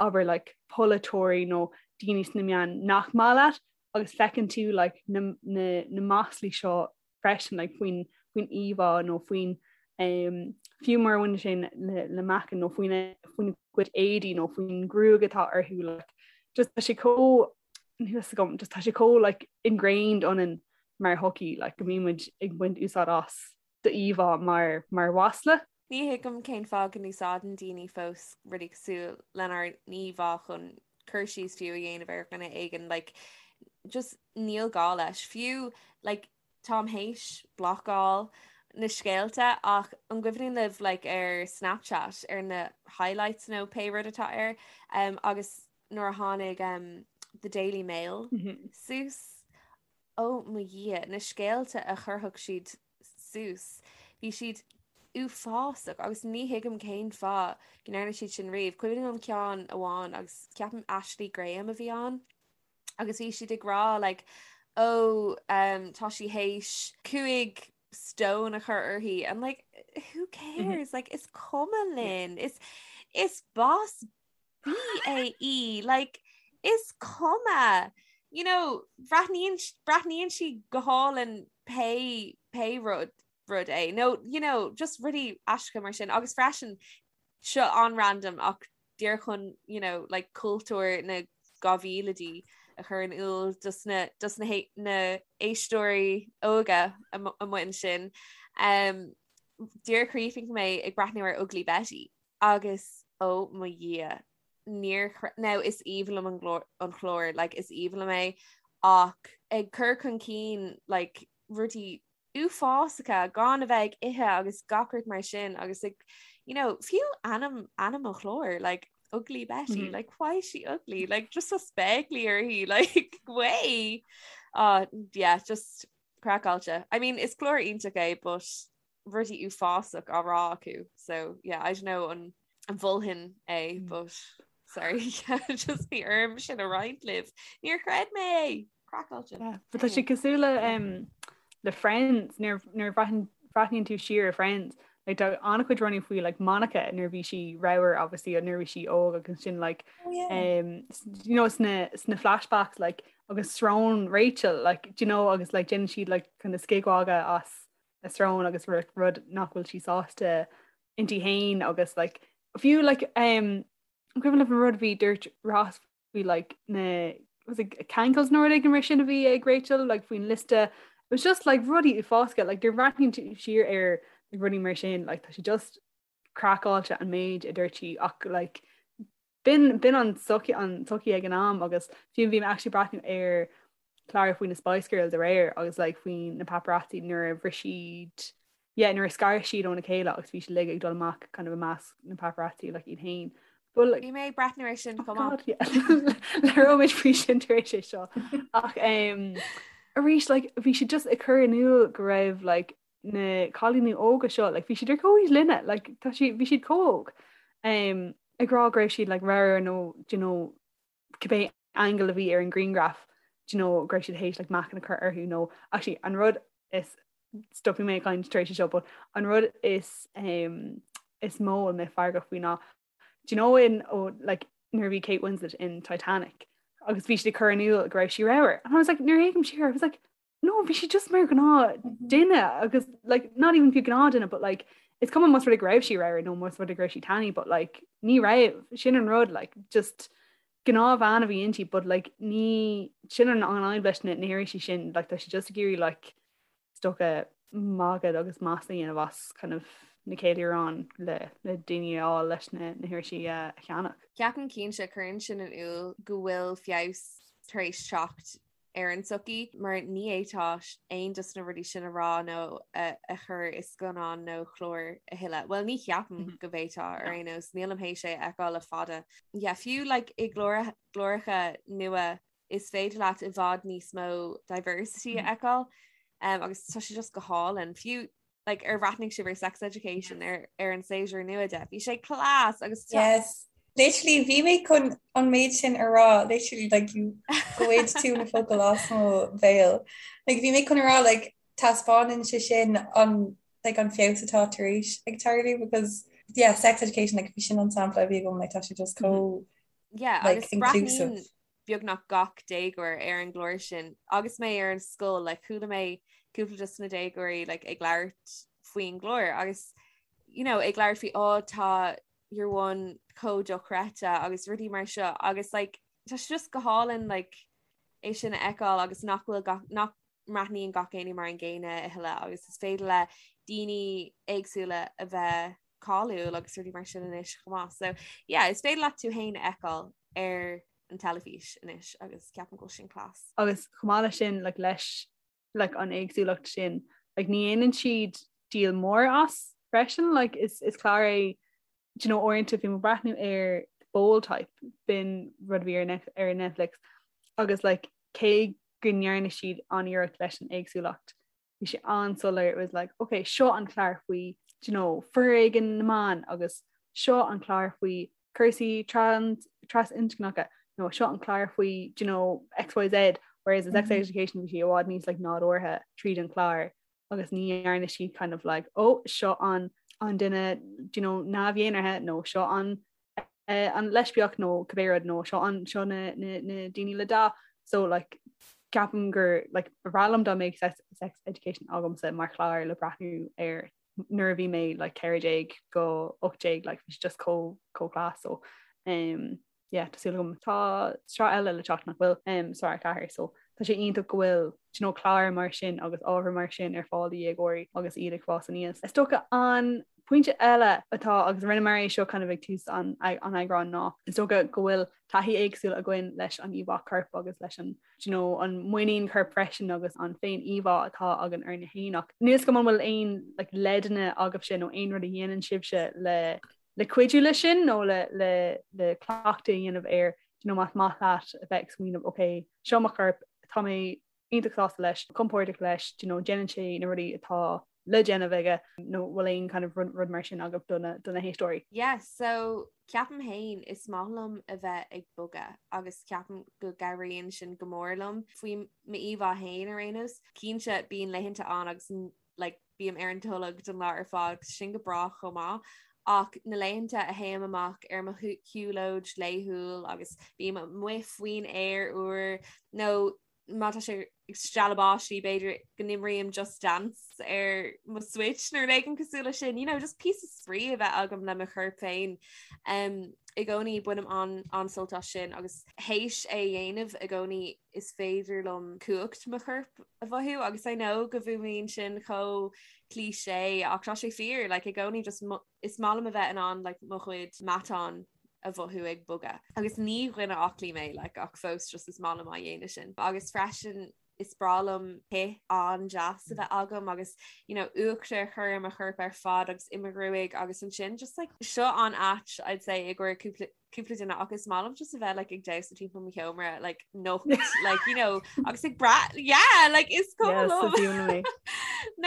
abair like polaiteoirí nó daoine sna meáin nach maith leat agus feiceann tú like na na na maslaí seo freisin like faoin faoin íomhá nó faoin um, fiú mura bhaineann sé le le meáchan nó faoin faoina gcuid éadaí nó faoin gruaig atá orthu like just tá sé chomh níl a fhios agam just tá sé chomh like ingrained ionainn mar shochaí like go mbíonn muid ag baint úsáid as do íomhá mar mar mhasla. Ní thuigim cén fáth go n-úsáideann daoine fós rudaí cosúil lenár n-íomhá chun cur síos fiú a dhéanamh ar dhuine éigin like just níl gá leis. Fiú like táim théis blocáil na scéalta ach an gcuimhníonn libh like ar Snapchat ar na highlights nó pé rud atá air um, agus nuair a tháinig um, The Daily Mail mm -hmm. suas Ó mo Dhia, na scéalta a chuirfeadh siad suas, bhí siad uafásach agus ní thuigim cén fáth go ndearna siad sin riamh. Cuimhin liom ceann amháin agus ceapaim Ashley Graham a bhí ann agus bhí siad ag rá like ó um, tá sí théis 5 stone a chur uirthi and like who cares like is cuma linn is is boss BAE like is cuma you know breathnaíonn breathnaíonn sí go hálainn pé pé rud rud é nó you know just rudaí aisteacha mar sin agus freisin seo an-random ach díreach chun you know like cultúr na 2000idí a chur in iúl dos na dos na na éisteoirí óga amuigh ansin um, díreach chríochnaigh mé ag breathnú ar Ugly Betty Agus ó mo Dhia, níor chre-, now is aoibhinn liom an glór, an chlár, like is aoibhinn liom é, ach ag cur chun cinn like rudaí uafásacha gan a bheith ag ithe agus gach rud mar sin agus ag, you know, fiú ainm, ainm an chláir, like Ugly Betty, mm -hmm. like why is she ugly? Like just tá spéaclaí uirthi, like way. Uh, yeah, just craiceáilte. I mean, is clár iontach é, but rudaí uafásach á rá acu so yeah I don't know an an mholfainn é mm. but sorry yeah, just bhí orm sin a roinnt libh. Níor chreid mé é craiceáilte. Yeah, but tá sé cosúil le um, le Friends nuair nuair bhreathnaíonn tú siar ar Friends like tá an-chuid rudaí faoi like Monica nuair bhí sí ramhar obviously nuair bhí sí óg agus sin like oh, yeah. um, you know sna sna flashbacks like agus srón Rachel like do you know agus like déanann siad like kind of scigmhagadh as a srón agus rud nach bhfuil sí sásta inti féin agus like fiú like um an cuimhin libh an rud bhí dúirt Ross faoi like na was it cankles nó rud éigin mar sin a bhí ag Rachel like faoin liosta it was just like rudaí uafásacha like nuair a bhreathnaíonn tú siar ar like rudaí mar sin like tá sé just craiceáilte an méid a dúirt sí ach like b'in b'in an tsochaí an tsochaí ag an am agus fiú bhí mé actually breathnú ar clár faoi na Spice Girls aréir agus like faoi na paparazzi nuair a bhris siad yeah nuair a scar siad óna chéile agus bhí siad uilig ag dul amach kind of i measc na paparazzi like iad féin. But like Bhí mé ag breathnú ar sin chomh maith. Labhróimid faoi sin tar éis é seo. Ach um, arís like bhí siad just ag cur in iúl go raibh like na cailíní óga seo like bhí siad ar comhaois linne like tá si bhí siad chomh hóg um, ag rá go raibh siad like ramhar nó do you know cibé angle a bhí ar an grianghraf do you know go raibh siad théis like meáchan a chur orthu nó actually an rud is stopfaidh mé ag caint tar éis seo but an rud is um, is mó a mé feargach faoi ná do you know in oh, like nuair a bhí Kate Winslet in Titanic agus bhí siad ag cur in iúl go raibh sí ramhar and I was like nuair a fhéachaim siar I was like no bhí sí just mar gnáth duine agus like not even fiú gnáth duine but like is cuma más rud é go raibh sí ramhar nó más rud é go raibh sí tanaí but like ní raibh sin an rud like just gnáthbhean a bhí inti but like ní sin an an fhadhb leis na na hirisí sin like tá sé just ag iarraidh like is dócha magadh agus masla a dhéanamh as kind of na ceiliúráin le le daoine a fháil leis na na hirisí a cheannach. Ceapaim cinnte cuireann sin in iúl go bhfuil feabhas tar éis teacht ar an tsochaí, mar ní fhéadfá aon dos na rudaí sin a rá nó a chur i scannán nó clár a thuilleadh. Bhuel, ní cheapaim go bhféadfá ar aon nós, nílim théis é a fheiceáil le fada. Yeah, fiú like i gcláracha nua is féidir leat i bhfad níos mó diversity a fheiceáil um, agus tá sé just go hálainn. Fiú like ar bhreathnaigh sibh ar Sex Education ar ar an séasúr nua de. Bhí sé class agus Yes. Literally bhí mé chun an méid sin a rá literally like you ghoid tú na focail as mo bhéal. Like bhí mé chun a rá like taispeánann sé sin an like an feabhas atá tar éis ag tarlú because yeah sex education like bhí sin an sampla a bhí agam like tá sé just chomh yeah like agus breathnaíonn inclusive. beagnach gach déagóir ar an gclár sin agus mé ar an scoil like chuala mé cúpla dos na déagóirí like ag labhairt faoin gclár agus you know ag labhairt faoi oh tá year one chomh dochreidte agus rudaí mar seo agus like tá sé just go hálainn like é sin a fheiceáil agus nach bhfuil gach nach mbreathnaíonn gach éinne mar an gcéanna a thuilleadh agus is féidir le daoine éagsúla a bheith. cáiliúil agus rudaí mar sin anois chomh maith. So yeah, is féidir leat tú féin a fheiceáil ar an teilifís anois agus ceapaim go bhfuil sin class. Agus chomh maith leis sin like, leis like, an éagsúlacht sin like, ní dhéanann siad díol mór as freisin like, is, is clár é do you know, uaireanta bhí mé ag breathnú ar Bold Type b'in rud a bhí ar, ar Netflix agus like, cé go ndearna siad an-iarracht leis an éagsúlacht bhí sé an-soiléir it was like ok seo an clár faoi do you know, foréigean na mban agus seo an clár faoi cúrsaí trans trasinscneacha nó seo an clár faoi do you know, XYZ whereas mm -hmm. sex education bhí sé i bhfad níos like nádúrtha tríd an clár agus ní dhearna siad kind of like oh seo an an duine do you know, neamh-dhénártha nó seo an uh, an leispiach nó cibé rud nó seo an seo na, na, na daoine le dath so like ceapaim gur like ba bhreá liom dá mbeadh sex, sex education agamsa mar chlár le breathnú air nuair a bhí mé like 14 go 18 like bhí just chomh chomh class so um, yeah, tá súil agam tá sraith eile le teacht nach bhfuil um, sraith 4 so tá sé iontach go bhfuil you know, clár mar sin agus ábhar mar sin ar fáil do dhéagóirí agus iad ag fás aníos. Is dócha an pointe eile atá agus rinneamar é seo kind of ag tús an, an eagráin ná is dócha go bhfuil taithí éagsúil againn leis an íomhá coirp agus leis an you know, an muinín coirp freisin agus an féin íomhá atá againn orainn féin ach níl 'fhios agam an bhfuil aon like, leideanna agaibhse nó aon rud a dhéanann sibhse le le cuidiú leis sin nó le le le cleachtadh a dhéanamh air you know, más maith leat a bheith ag smaoineamh ok seo mo chorp tá mé iontach sásta leis compordach leis you know, déanann sé na rudaí atá le déanamh aige nó bhfuil aon kind of rud, rud mar sin agaibh do na, do na héisteoirí. Yeah, so ceapaim féin is maith liom a bheith ag bogadh agus ceapaim go gcabhraíonn sin go mór liom faoi m'íomhá féin ar aon nós. Cinnte bíonn laethanta ann agus like, bím ar an tolg don lá ar fad agus sin go breá chomh maith. Ach na laethanta a théim amach ar mo shiúlóid laethúil agus bím amuigh faoin aer úr nó má tá sé ag stealladh báistí b'fhéidir go n-imrím Just Dance ar mo Switch nó rud éigin cosúil leis sin, you know, just píosa spraoi a bheith agam le mo chorp féin. Um, I gcónaí bainim an an-sult as sin agus théis é a dhéanamh i gcónaí is féidir liom cumhacht mo choirp a mhothú agus I know go bhfuaimníonn sin chomh cliché ach tá sé fíor like i gcónaí just is maith liom a bheith in ann like mo chuid matán a mhothú ag bogadh. Agus ní dhuine aclaí mé like ach fós just is maith liom á dhéanamh sin. Agus freisin is breá liom cith an-deas a bheith agam agus you know uachtar a chur ar mo chorp ar fad agus i mo ghruaig agus ansin just like seo an-ait I'd say i gcomhair cúpla cúpla duine ach is maith liom just a bheith like ag damhsa timpeall mo sheomra like nocht like you know agus ag brath yeah like is cuma liom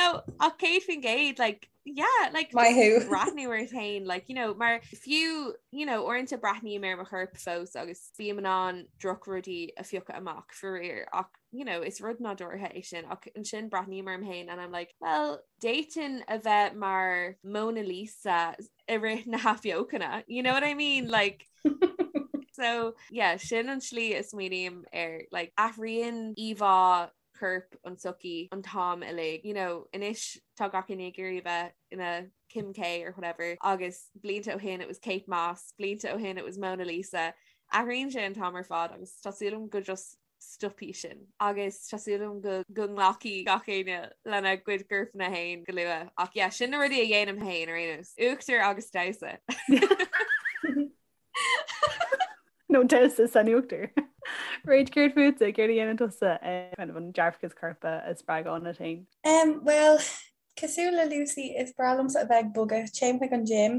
no ach 100% like yeah like Maith thú. breathnú ort féin like you know mar fiú you know uaireanta breathnaím ar mo chorp fós agus bím in ann drochrudaí a phiocadh amach faraor ach you know is rud nádúrtha é sin ach ansin breathnaím orm féin and I'm like well d'fhéadfainn a bheith mar Mona Lisa i rith na hathbheochana you know what I mean like so yeah sin an slí a smaoiním air like athraíonn íomhá coirp an tsochaí an t-am uilig you know anois tá gach éinne ag iarraidh a bheith ina Kim K or whatever agus blianta ó shin it was Kate Moss blianta ó shin it was Mona Lisa athraíonn sé an t-am ar fad agus tá súil agam go just stopfaidh sin agus tá súil agam go go nglacfaidh gach éinne lena gcuid corpanna féin go luath ach yeah sin na rudaí a dhéanaim féin ar aon nós uachtar agus damhsa. Nó damhsa san uachtar. Rach céard fútsa céard a dhéanann tusa eh, kind of an dearfachas coirp a spreagadh ionat féin. Um, well, Cosúil le Lucy, is breá liomsa a bheith ag bogadh, téim chuig an gym,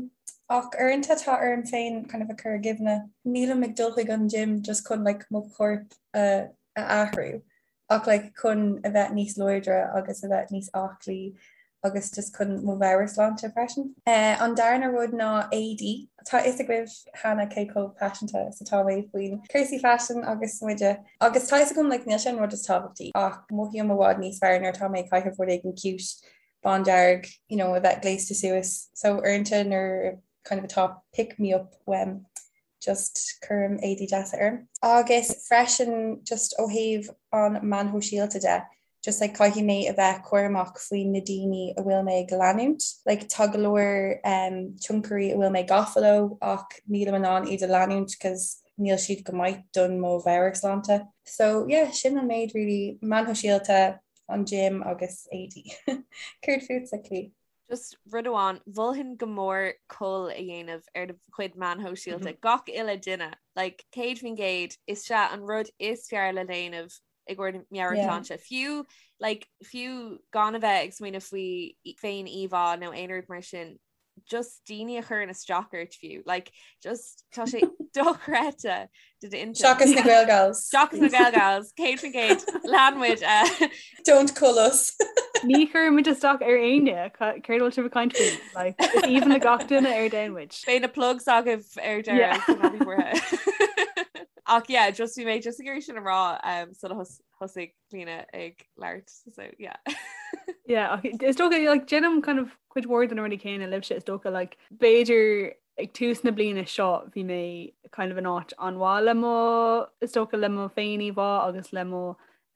ach uaireanta tá orm féin kind of a chur i gcuimhne, nílim ag dul chuig an gym just chun like mo chorp a a athrú, ach like chun a bheith níos láidre agus a bheith níos aclaí agus just chun mo mheabhairshláinte freisin. An darna rud ná éadaí. Tá fhios agaibh cheana cé chomh paiseanta is atá mé faoin cúrsaí faisin agus smideadh agus tá fhios agam like níl sé an rud is tábhachtaí ach mothaím i bhfad níos fearr nuair atá mé ag caitheamh rud éigin cute bándearg you know a bheith gléasta suas so uaireanta nuair kind of atá pick me up uaim just cuirim éadaí deasa orm. Agus freisin just ó thaobh an meáin shóisialta de just like caithfidh mé a bheith cúramach faoi na daoine a bhfuil mé ag leanúint. Like tá go leor um, tionchairí a bhfuil mé gafa leo ach nílim in ann iad a leanúint cos níl siad go maith don mo mheabhairshláinte. So yeah, sin an méid really meáin shóisialta, an gym agus éadaí. Céard fútsa Clí? Just rud amháin, mholfainn go mór cull a dhéanamh ar do chuid meán shóisialta. Mm -hmm. Gach uile duine, like 100% is é an rud is fearr le déanamh i gcomhair meabhairshláinte. Yeah. Fiú like, fiú gan a bheith ag smaoineamh faoi féin íomhá nó aon rud mar sin, just daoine a chuireann isteach ort fiú like just tá sé dochreidte do d'intinn. Seachas na Gaelgals. Seachas na Gaelgals 100% lean muid uh. Don't cull us. Ní chuirimid isteach ar éinne céard bhfuil sibh ag caint faoi like is aoibhinn le gach duine ar domhan muid. Beidh na plugs agaibh ar deireadh. Ach yeah, just bhí mé just ag iarraidh sin a rá um, sula thosaigh Clíona ag labhairt so yeah. Yeah, okay. Is dócha like, déanaim kind of cuid mhór de na rudaí céanna libhse is dócha like, b'fhéidir ag tús na bliana seo bhí mé kind of in áit an-mhaith le mo is dócha le mo féin-íomhá agus le mo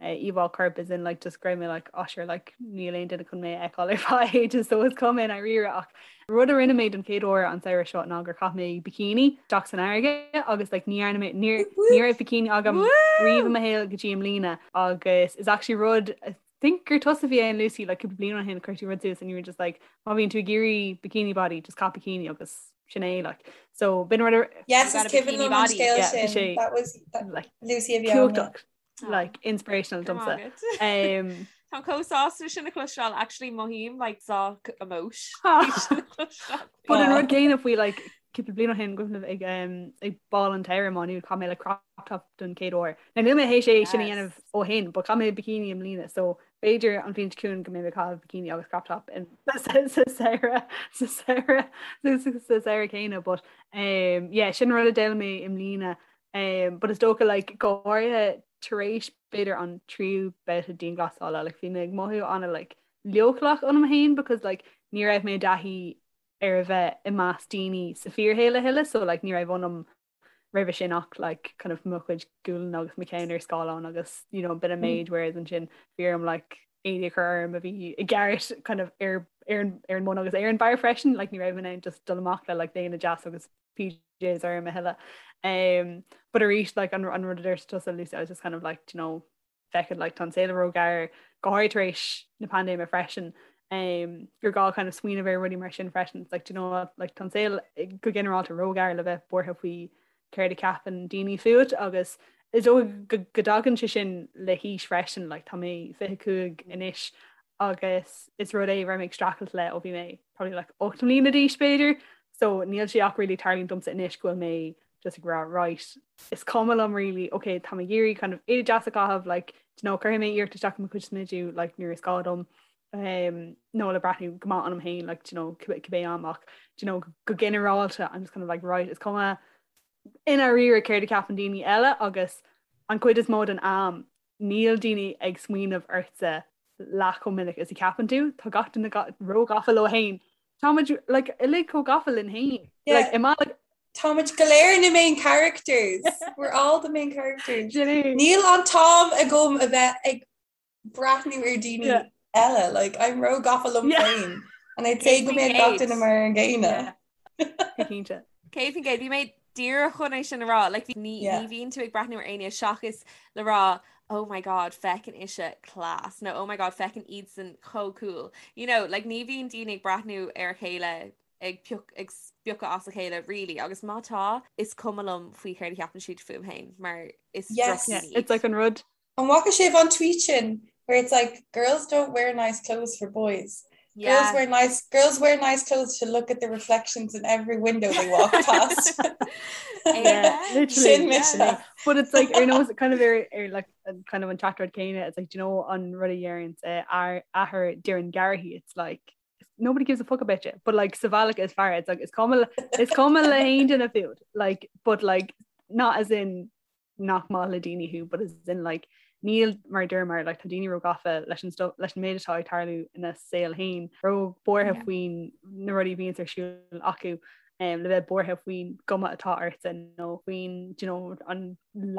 eh, íomhá coirp as in like just go raibh mé like oh sure like níl aon duine chun mé a fheiceáil ar feadh ages so is cuma i ndáiríre ach Rud a rinne mé don chéad uair an samhradh seo ná gur chaith mé bikini isteach san fharraige agus like ní dhearna mé níor ní raibh bikini agam riamh i mo shaol go dtí i mbliana agus is actually rud I think gur tusa a bhí ann Lucy like cúpla bliain ó shin chuir tú rud suas and you were just like má bhíonn tú ag iarraidh bikini body just caith bikini agus sin é like so b'in rud a Yes, is cuimhin liom an scéal sin. That was that, like Lucy a bhí ann. Cumhachtach. like inspirational domsa. Um, Tá chomh sásta sin a chloisteáil actually mothaím like sách emotional. But an rud céanna faoi like cúpla bliain ó shin cuimhním ag um, ag bál an tsamhraidh má nó chaith mé like crop top don chéad uair. Now níl mé théis é sin a dhéanamh ó shin, but chaith mé bikini i mbliana, so b'fhéidir an bhliain seo chugainn go mbeidh mé ag caitheamh bikini agus crop top in sa samhradh sa samhradh sa samhradh céanna, but um, yeah, sin rud a d'fhoghlaim mé i mbliana Um, but is dócha like, go háirithe tar éis b'fhéidir an tríú babhta dianghlasála, like, bhí mé ag mothú ana like, leochaileach ionam féin because like, ní raibh mé i dtaithí ar a bheith i measc daoine sa fíorshaol a thuilleadh, so like, ní raibh ionam roimhe sin ach like, kind of mo chuid gualainn agus mo cheann ar scáileán agus you know, b'in an méid whereas ansin bhí orm like, éadaí a chur orm a bhí i gceart kind of ar, ar, ar an mbun agus ar an barr freisin, like, ní raibh mé in ann just dul amach le like, léine deas agus PJs orm a thuilleadh. Um, but arís like, an, an rud a dúirt tusa Lucy, I was just kind of like, you know, feicid like, tá an saol róghearr go háirithe tar éis na paindéime freisin. Um, gur gá kind of smaoineamh ar rudaí mar sin freisin. It's like, you know, like, tá an saol go ginearálta róghearr le bheith buartha faoi céard a cheapann daoine fút agus is dóigh go dtagann sé sin le haois freisin, like, tá mé 25 anois agus is rud é a raibh mé ag streachailt le ó bhí mé probably like 8 mbliana d'aois b'fhéidir so níl sé ach really tarlaíonn domsa anois go bhfuil mé just ag rá right is cuma liom really ok tá mé ag iarraidh kind of éadaí deas a chaitheamh like do you know cuirfidh mé iarracht isteach i mo chuid smidiú like nuair is gá dom um, nó le breathnú go maith ionam féin like do you know cibé am ach do you know go ginearálta I'm just kind of like right is cuma i ndáiríre céard a cheapann daoine eile agus an chuid is mó den am níl daoine ag smaoineamh ortsa leath chomh minic is a cheapann tú, tá gach duine róghafa leo féin. Táimid like, uilig chomh gafa linn féin. Yeah. Like, like, Táimid go léir na main characters. We're all the main characters. Níl an t-am agam a bheith ag breathnú ar daoine eile, like, I'm róghafa liom féin. And I'd say go mbeadh gach duine mar an gcéanna. Cinnte. 100% bhí mé díreach chun é sin a rá, like, ní ní bhíonn tú ag breathnú ar éinne seachas le rá oh my god feiceann ise class nó oh my god feiceann iadsan chomh cool. You know, like, ní bhíonn daoine ag breathnú ar a chéile ag pioc ag spiocadh as a chéile really agus má tá is cuma liom faoi céard a cheapann siad fúm féin mar is Yes. Yeah, it's like an rud An bhfaca sibh an tweet sin where it's like girls don't wear nice clothes for boys. Yeah. Girls wear nice girls wear nice clothes to look at the reflections in every window they walk past. yeah, literally. Sin mise. Yeah. But it's like ar nós kind of ar, ar like kind of an teachtaireacht céanna it's like do you know an rud a deireann uh, athair Doireann Garrihy it's like nobody gives a fuck about you but like sa bhealach is fearr it's like is cuma is cuma le haon duine fút like but like not as in nach maith le daoine thú but as in like níl mar dúramar like tá daoine róghafa leis an stuff leis an méid atá ag tarlú ina saol féin róbhuartha yeah. faoin na rudaí a bhíonns ar siúl acu um, le bheith buartha faoin gcuma atá ortsa nó faoin you know, an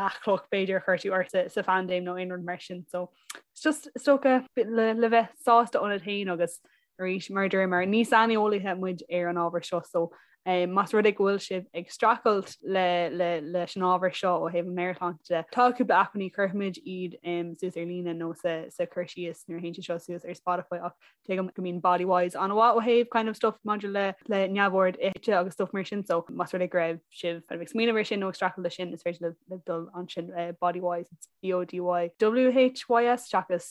leathchloch b'fhéidir a chuir tú ortsa sa phaindéim nó aon rud mar sin so it's just is dócha le, le bheith sásta ionat féin agus arís mar dúramar ní saineolaithe muid ar an ábhar seo so. Más rud é go bhfuil sibh ag streachailt le leis an ábhar seo ó thaobh an mheabhairshláinte de, tá cúpla acmhainní, cuirfimid iad suas ar líne nó sa chur síos nuair a théann sé seo suas ar Spotify ach tuigim go mbíonn Bodywhys an-mhaith ó thaobh kind of stuff maidir le le neamhord ite agus stuff mar sin so más rud é go raibh sibh kind of ag smaoineamh ar sin nó ag streachailt leis sin is féidir libh dul ansin Bodywhys, it's B-O-D-Y W-H-Y-S seachas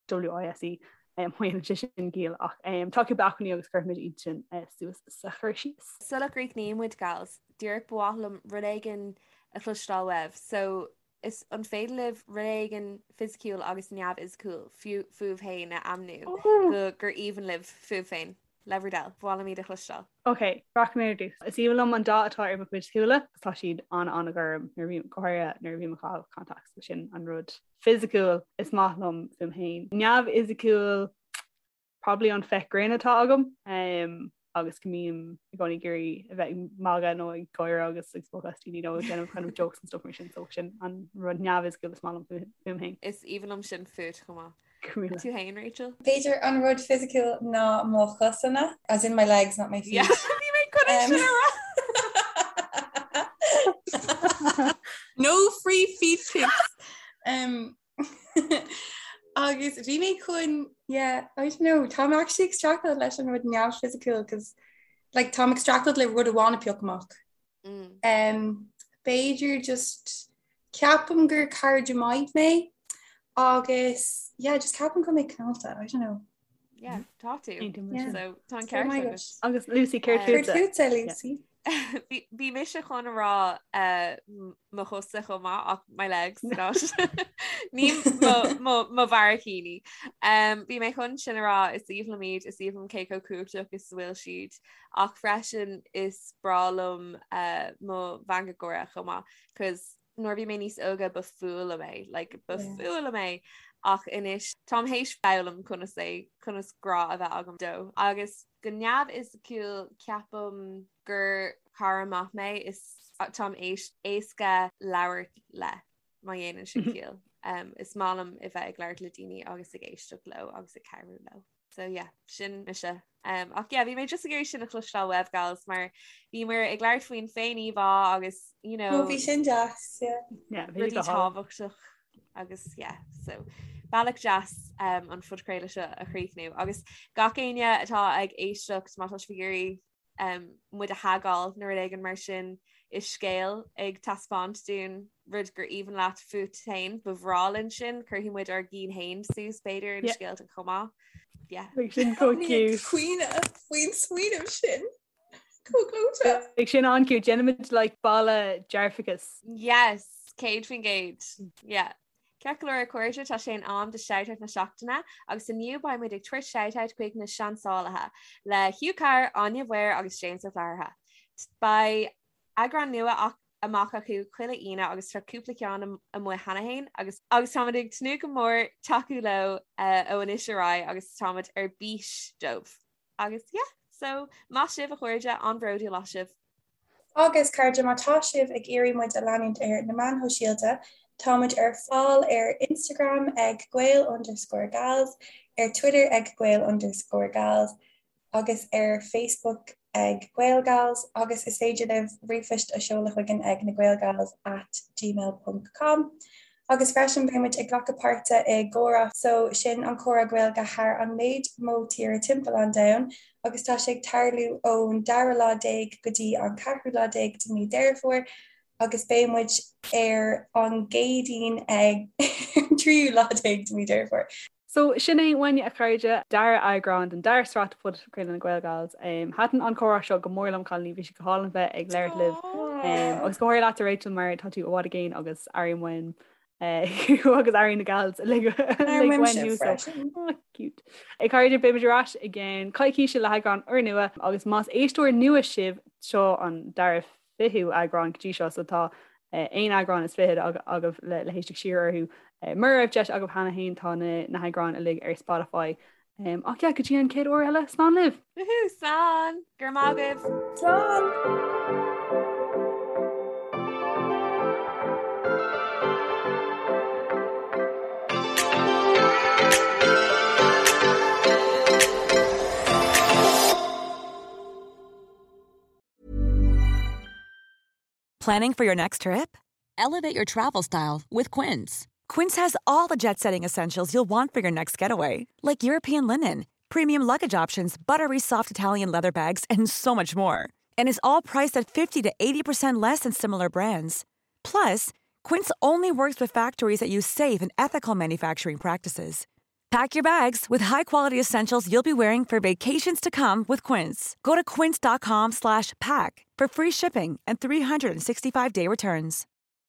WISE má dhéanann sé sin ciall ach tá cúpla acmhainní agus cuirfimid iad sin suas sa chur síos. Sula gcríochnaíonn muid gals, díreach ba mhaith liom rud éigin a chloisteáil uaibh. So is an féidir libh rud éigin fisiciúil agus neamhfhisiciúil fúibh féin a ainmniú go gur aoibhinn libh fúibh féin? Le bhur dtoil, ba mhaith liom iad a chloisteáil. Ok, rachaidh mé ar dtús. Is aoibhinn liom an dath atá ar mo chuid súile agus tá siad an-an-ghorm nuair a bhím, go háirithe nuair a bhím ag caitheamh contacts, so sin an rud fisiciúil is maith liom fúm féin. Neamhfhisiciúil, probably an féith grinn atá agam agus go mbím i gcónaí ag iarraidh a bheith ag magadh nó ag gáire agus ag spochadh as daoine nó ag déanamh kind of jokes and stuff mar sin, so sin an rud neamhfhisiciúil is maith liom fúm féin. Is aoibhinn liom sin fút chomh maith. Tú féin, Rachel? B'fhéidir an rud fisiciúil ná mo chosanna, as in my legs, not my feet. Yeah, bhí mé chun é sin a rá. No free feet pics. Um, agus bhí mé chun, yeah, I don't know, táim actually ag streachailt leis an rud neamhfhisiciúil, cos like, táim ag streachailt le rud amháin a phiocadh amach. Mm. Um, b'fhéidir just ceapaim gur cairde maith mé agus yeah, just ceapaim go mé cineálta, I don't know. Yeah, tá tú. Yeah. So tá an ceart agat. Agus Lucy céard fútsa? Céard fútsa Lucy? Bhí mise chun a rá uh, mo chosa chomh maith ach my legs not. Ní mo bharraicíní. Um, bhí mé chun sin a rá is aoibhinn liom iad, is aoibhinn liom cé chomh cumhachtach is a bhfuil siad. Ach freisin is breá liom mo mheangadh gáire chomh maith 'cause nuair a bhí mé níos óige ba fuath liom é, like ba fuath liom é ach anois táim théis foghlaim conas é, conas grá a bheith agam dó. Agus go neamhfhisiciúil ceapaim gur cara maith mé is táim éasca labhairt le má dhéanann sin ciall. Is maith liom a bheith ag labhairt le daoine agus ag éisteacht leo agus ag cabhrú leo. So yeah, sin mise. Um, ach yeah, bhí mé just ag iarraidh sin a chloisteáil uaibh gals mar bhíomar ag labhairt faoin féin-íomhá agus you know Oh, bhí sin deas, yeah. Yeah, bhí rudaí go hálainn. tábhachtach agus yeah, so bealach deas um, an phodchraoladh seo a chríochnú agus gach éinne atá ag éisteacht má tá sibh ag iarraidh um, muid a thagáil nó rud éigin mar sin i scéal ag taispeáint dúinn rud gur aoibhinn leat fút féin, ba bhreá linn sin, cuirfidh muid ár gcinn féin suas b'fhéidir in Yeah. scéalta chomh maith. Yeah. Beidh sin chomh cute. Caoineadh faoin smaoineamh sin. Chomh gleoite. Beidh sin an-cute. Déanaimid like balla dearfachais. Yes, 100%. Yeah. Ceart go leor a chairde, tá sé in am do Shoutout na Seachtaine agus inniu beidh muid ag tabhairt shoutout chuig na Seansálaithe le Hugh Carr, Áine Mhaoir agus James Ó Flathartha. Beidh eagrán nua amach acu chuile Aoine agus tá cúpla ceann amuigh cheana féin agus agus táimid ag tnúth go mór tacú leo ó anois ar aghaidh agus táimid ar bís dóibh. Agus yeah, so maith sibh a chairde, an-bhródúil as sibh. Agus cairde, má tá sibh ag iarraidh muid a leanúint ar na meáin shóisialta, tá muid ar fáil ar Instagram ag gael underscore gals, ar Twitter ag gael underscore gals agus ar Facebook ag GaelGals agus is féidir libh ríomhphoist a sheoladh chugainn ag nagaelgals at gmail ponc com. Agus freisin beidh muid ag glacadh páirte i gComhrá, so sin an comhrá Gaeilge thar an méid mó tíre timpeall an domhain agus tá sé ag tarlú ón dara lá déag go dtí an ceathrú lá déag de mí Deireadh Fómhair agus beidh muid ar an gCéadaoin ag tríú lá déag de mí Deireadh Fómhair. So, sin é uainne a chairde, dara eagrán den dara sraith de Phodchraoladh na GaelGals. Thaitin an comhrá seo go mór liom, cailíní, bhí sé go hálainn bheith ag labhairt libh. Agus go háirithe leatsa Rachel mar tá tú i bhfad i gcéin agus airím uaim thú agus airím na gals uilig uaim thú. So, oh, cute. A chairde, beimid ar ais i gceann coicíse le heagrán úrnua agus más éisteoir nua sibh, seo an dara fichiú eagrán go dtí seo so tá aon eagrán is fichead agaibh le le héisteacht siar orthu. Mura raibh deis agaibh cheana féin tá na na heagráin uilig ar Spotify. Ach yeah, go dtí an chéad uair eile, slán libh! Woohoo! Slán! Go raibh maith agaibh! Slán! Planning for your next trip? Elevate your travel style with Quince. Quince has all the jet setting essentials you'll want for your next getaway, like European linen, premium luggage options, buttery soft Italian leather bags, and so much more. And is all priced at 50 to 80% less than similar brands. Plus, Quince only works with factories that use safe and ethical manufacturing practices. Pack your bags with high-quality essentials you'll be wearing for vacations to come with Quince. Go to quince.com slash pack for free shipping and 365-day returns.